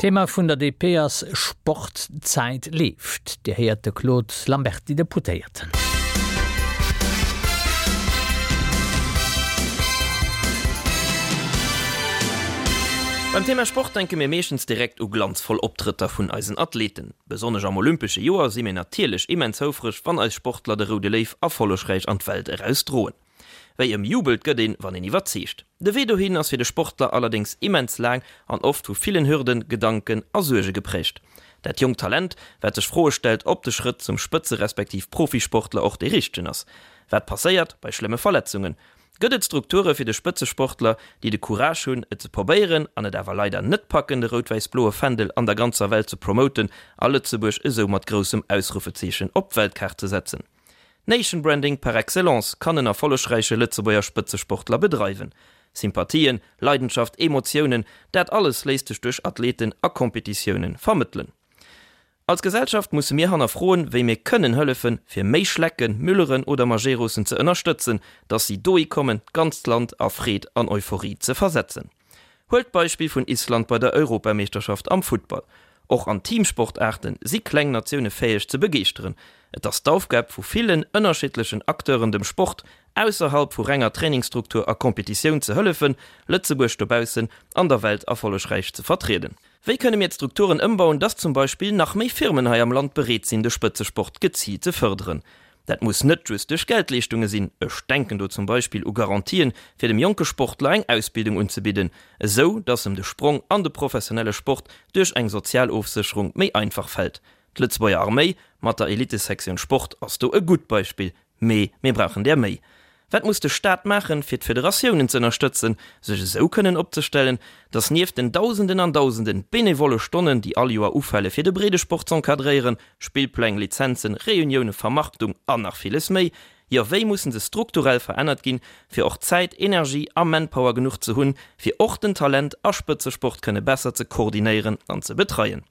Thema vun der DP ass Sport, d'Zäit leeft. Dir héiert de Claude Lamberty, Deputéierten. Beim Thema Sport denke mir meeschtens direkt u glanzvoll Optrëtter vun eisen Athleten. Besonnesch am olympesche Joer si mir natierlech immens houfreg, wann eis Sportler de Roude Léiw erfollegräich an d'Welt eraus droen. Wéi ëmjubelt gëtt een, wann een iwwerzeegt. De Wee dohin ass fir de Sportler allerdéngs immens laang an oft vu villen Hürden, Gedanken a Suerge geprägt. Dat jonkt Talent, wat sech Froe stellt, ob de Schrëtt zum Spëtze respektiv Profisportler och dee richtegen ass. Wat passéiert bei schlëmme Verletzungen? Gëtt et Strukture fir de Spëtzesportler, déi de Courage hunn, et ze probéieren an et awer leider net packen, de rout-wäiss-bloe Fändel an der ganzer Welt ze promoten a Lëtzebuerg esou mat groussem Ausrufezeechen op d'Weltkaart ze setzen? Nation Branding par excellence kann en erfollegräiche Lëtzebuerger Spëtzesportler bedreiwen. Sympathien, Leidenschaft, Emotiounen, dat alles léisst sech duerch Athleten a Competitioune vermëttelen. Als Gesellschaft musse mir hannerfroen, wéi mir kënnen hëllefen, fir méi Schlecken, Mülleren oder Majerosen ze ënnerstëtzen, dass si dohi kommen, d'ganzt Land a Freed an Euphorie ze versetzen. Huelt d'Beispill vun Island bei der Europameeschterschaft am Futtball. Och an Teamsportaarte si kleng Natioune fäeg ze begeeschteren. Et ass d'Aufgab vu villen ënnerschiddlechen Acteuren dem Sport, ausserhalb vu renger Trainingsstruktur a Competitioun ze hëllefen, Lëtzebuerg dobaussen an der Welt erfollegräich ze vertrieden. Wéi kënne mir d'Strukturen ëmbauen, dass zum Beispill nach méi Firmen hei am Land bereet sinn de Spëtzesport geziilt ze fërderen? Dat muss net just duerch Geldleeschtunge sinn, ech denken do zum Beispill u Garantien, fir dem jonke Sportler eng Ausbildung unzebidden, esou dass em de Sprong an de professionelle Sport duerch eng Sozialofsécherung méi einfach fält. D'Lëtzebuerger Arméi mat der Elitesektioun Sport ass do e gutt Beispill, mee mir brauchen där méi. Wat muss de Staat maachen, fir d'Federatiounen ze ënnerstëtzen, sech esou kënnen opzestellen, datt nieft den Dausenden an Dausenden benevolle Stonnen, déi all Joer ufale fir de Breedesport z'encadréieren, Spillpläng, Lizenzen, Reunioune, Vermarktung an nach villes méi, jo wéi mussen se strukturell verännert ginn, fir och Zäit, Energie a Manpower genuch ze hunn, fir och den Talent a Spëtzesport kënne besser ze koordinéieren an ze betreien?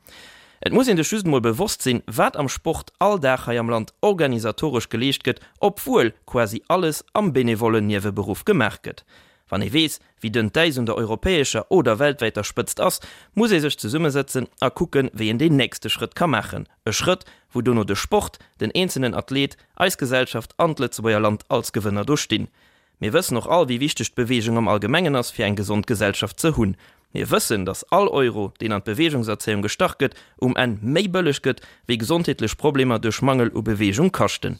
Et muss een sech just emol bewosst sinn, wat am Sport all Dag hei am Land organisatoresch geleescht gëtt, obwuel quasi alles am benevollen Nieweberuff gemaach gëtt. Wann ee weess, wéi dënn d'Äis un der europäescher oder weltwäiter Spëtzt ass, muss ee sech zesummesëtzen a kucken, wéi een deen nächste Schrëtt ka maachen. E Schrëtt, wou dono de Sport, den eenzelnen Athlet, eis Gesellschaft an d'Lëtzebuerger Land als Gewënner do stinn. Mir wëssen och all, wéi wichteg d'Beweegung am Allgemengen ass, fir eng gesond Gesellschaft ze hunn. Mir wëssen, dass all Euro, deen an d'Beweegungserzéiung gestach gëtt, um Enn méi bëlleg gëtt, wéi gesondheetlech Problemer duerch Mangel u Beweegung kaschten.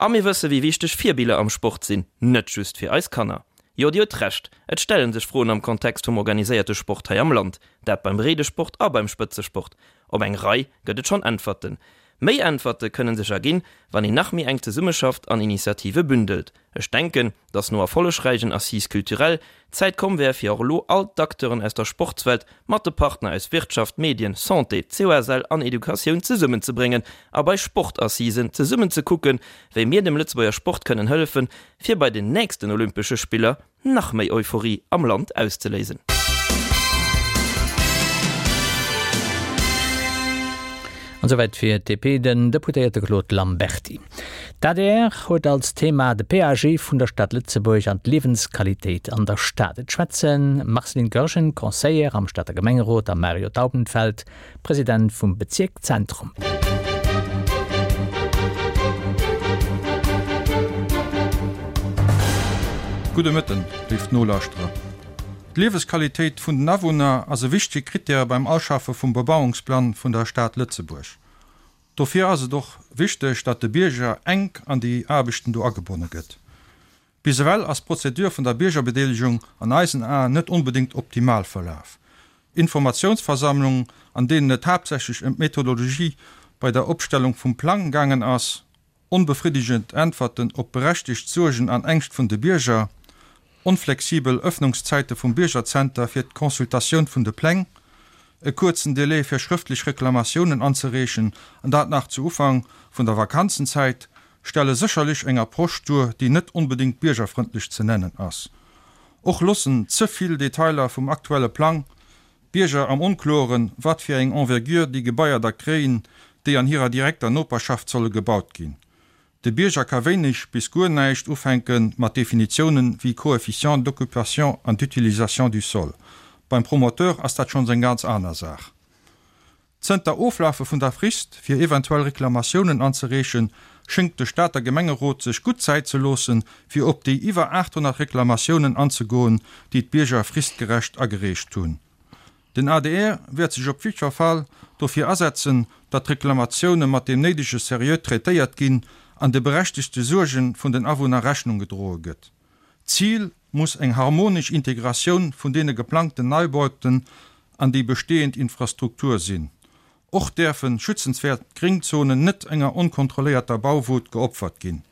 A mir wësse wéi wichteg Virbiller am Sport sinn, net just fir eis Kanner. Jo, Dir hutt Recht, et stelle sech Froen am Kontext vum organiséierte Sport hei am Land, dat beim Breedesport a beim Spëtzesport. Op eng Rei gëtt et schonn Äntwerten. Méi Äntwerte kënnen sech erginn, wann een nach méi enk zesummeschafft an Initiative bündelt. Ech denken, dass no erfollegräichen Assises culturelles d'Zäit komm wär, fir och elo all d'Acteuren aus der Sportswelt mat de Partner aus Wirtschaft, Medien, Santé, COSL an Educatioun zesummenzebréngen a bei Sportassisen zesummen ze kucken, wéi mir dem Lëtzebuerger Sport kënnen hëllefen, fir bei den nächsten Olympesche Spiller nach méi Euphorie am Land auszeléisen. An souwäit fir d'DP den Deputéierte Claude Lamberty. D'adr huet als Thema de PAG vun der Stad Lëtzebuerg an d'Liewensqualitéit an der Stad. Et schwätzen Marceline Goergen, Conseillère am Stater Gemengerot a Mario Taubenfeld, President vum Bezierk Zentrum. Gudde Mëtten, léif Nolauschterer. D'Liewesqualitéit vun den Awunner ass e wichtege Krittär beim Auschaffe vum Bebauungsplang vun der Stad Lëtzebuerg. Dofir ass et och wichteg, datt de Bierger enk an déi Aarbechten do agebonne gëtt. Bis ewell ass d'Prozedur vun der Biergerbedeelegung an eisen Aen net onbedéngt optimal verlaf. Informatiounsversammlungen, an deenen et haaptsächlech ëm d'Methodologie bei der Opstellung vum Plang gaangen ass, onbefriddegend Äntwerten op berechtegt Suergen an Ängscht vun de Bierger, onflexibel Ëffnungszäite vum Biergerzenter fir d'Consultatioun vun de Pläng, e kuerzen Delai fir schrëftlech Reklamatiounen anzereechen, an dat nach zu Ufank vun der Vakanzenzäit, stelle sécherlech eng Approche duer, déi net onbedéngt biergerfrëndlech ze nennen ass. Och loossen ze vill Detailer vum aktuelle Plang d'Bierger am Onkloren, wat fir eng Envergure déi Gebaier da kréien, déi an hirer direkter Noperschaft solle gebaut ginn. De Bierger ka wéineg bis guer näischt ufänke mat Definitiounen wéi Coefficient d'occupation an d'utilisation du sol. Beim Promoteur ass dat schonns eng ganz aner Saach. Zënter Oflafe vun der Frist, fir eventuell Reklamatiounen anzereechen, schéngt de Stater Gemengerot sech gutt Zäit ze loossen, fir op déi iwwer 800 Reklamatiounen anzegoen, déi d'Bierger fristgerecht agereecht hunn. Den adr wäert sech op jiddwer Fall dofir asetzen, datt d'Reklamatioune mat deem néidege Seriö traitéiert ginn an de berechtegte Suerge vun den Awunner Rechnung gedroe gëtt. D'Zil muss eng harmonesch Integratioun vun deene geplangten Neibauten an déi bestehend Infrastruktur sinn. Och däerfe schützenswäert Gréngzonen net enger onkontrolléierter Bauwut geopfert ginn.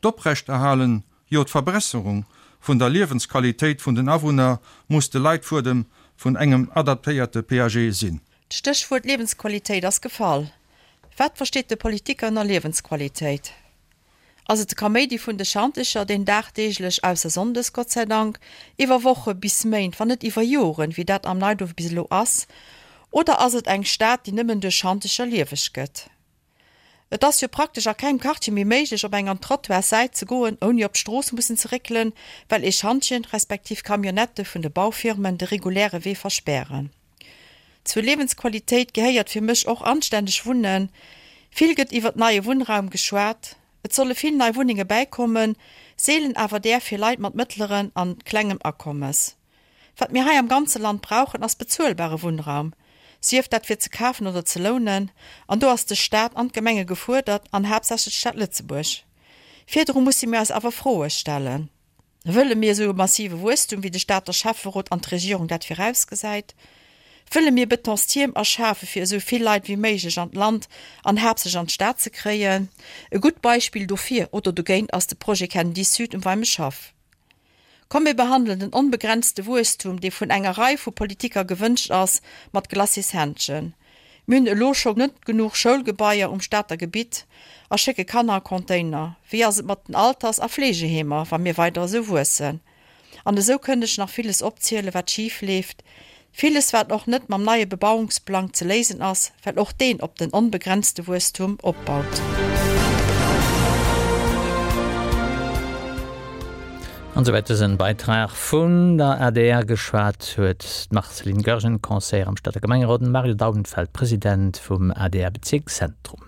D'Oprechterhalen, jo d'Verbesserung vun der Liewensqualitéit vun den Awunner muss de Leitfuedem vun engem adaptéierte PAG sinn. D'Stéchwuert Liewensqualitéit ass gefall. Wat versteet de Politiker ënner Liewensqualitéit? Ass et de Kaméidi vun de Schantecher, deen dagdeeglech, ausser sonndes, Gott sei Dank, iwwer Woche bis Méint, wann net iwwer Joren, wéi dat am Neiduerf bis elo ass? Oder ass et eng Stad, déi nëmmen duerch Schantecher lieweg gëtt? Et ass jo praktesch a kengem Quartier méi méiglech, op eng an d'Trottoirssäit ze goen, ouni op d'Strooss mussen ze réckelen, well ee Schantjen, respektiv Camionnettë vun de Baufirmen de reguläre Wee verspären. Zur Liewensqualitéit gehéiert fir mech och anstänneg Wunnen. Vill gëtt iwwert neie Wunnraum geschwat. Et solle vill nei Wunnenge bäikommen, seelen awer där fir Leit mat mëttleren an klengem Akommes. Wat mir hei am ganze Land brauchen, ass bezuelbare Wunnraum, sief dat fir ze kafen oder ze lounen. An do ass de Staat an d'Gemenge gefuerdert, an haaptsächlech d'Stad Lëtzebuerg. Virdru musse mir eis awer Froe stellen. Wëlle mir esou e massive Wuesstum, wéi de Stater Schäfferot an d'Regierung dat virausgesäit? Wëlle mir Betonstierm erschafe fir esou vill Leit wéi méiglech an d'Land an haaptsächlech an d'Stad ze kréien? E gutt Beispill dofir oder dogéint ass de Projet Kennedy Sud um Weimeschhaff. Komm mir behandelen den onbegrenzte Wuesstum, dee vun enger Rei vu Politiker gewënscht ass, mat Glacis-Händschen. Mir hunn elo scho net genuch Schoulgebaier um Stater Gebitt a schécke Kanner a Container. Wéi ass et mat den Alters a Fleegeheemer, wa mir weider esou wuessen? An esou kënnt ech nach villes opzielen, wat schif leeft. Villes, wat och net mam neie Bebauungsplang ze léisen ass, well och deen op den onbegrenzte Wuesstum opbaut. An souwäit dësen Beitrag vun der adr. Geschwat huet d'Marceline Goergen, Conseillère am Stater Gemengerot, an de Mario Daubenfeld, President vum ADR-Bezierk Zentrum.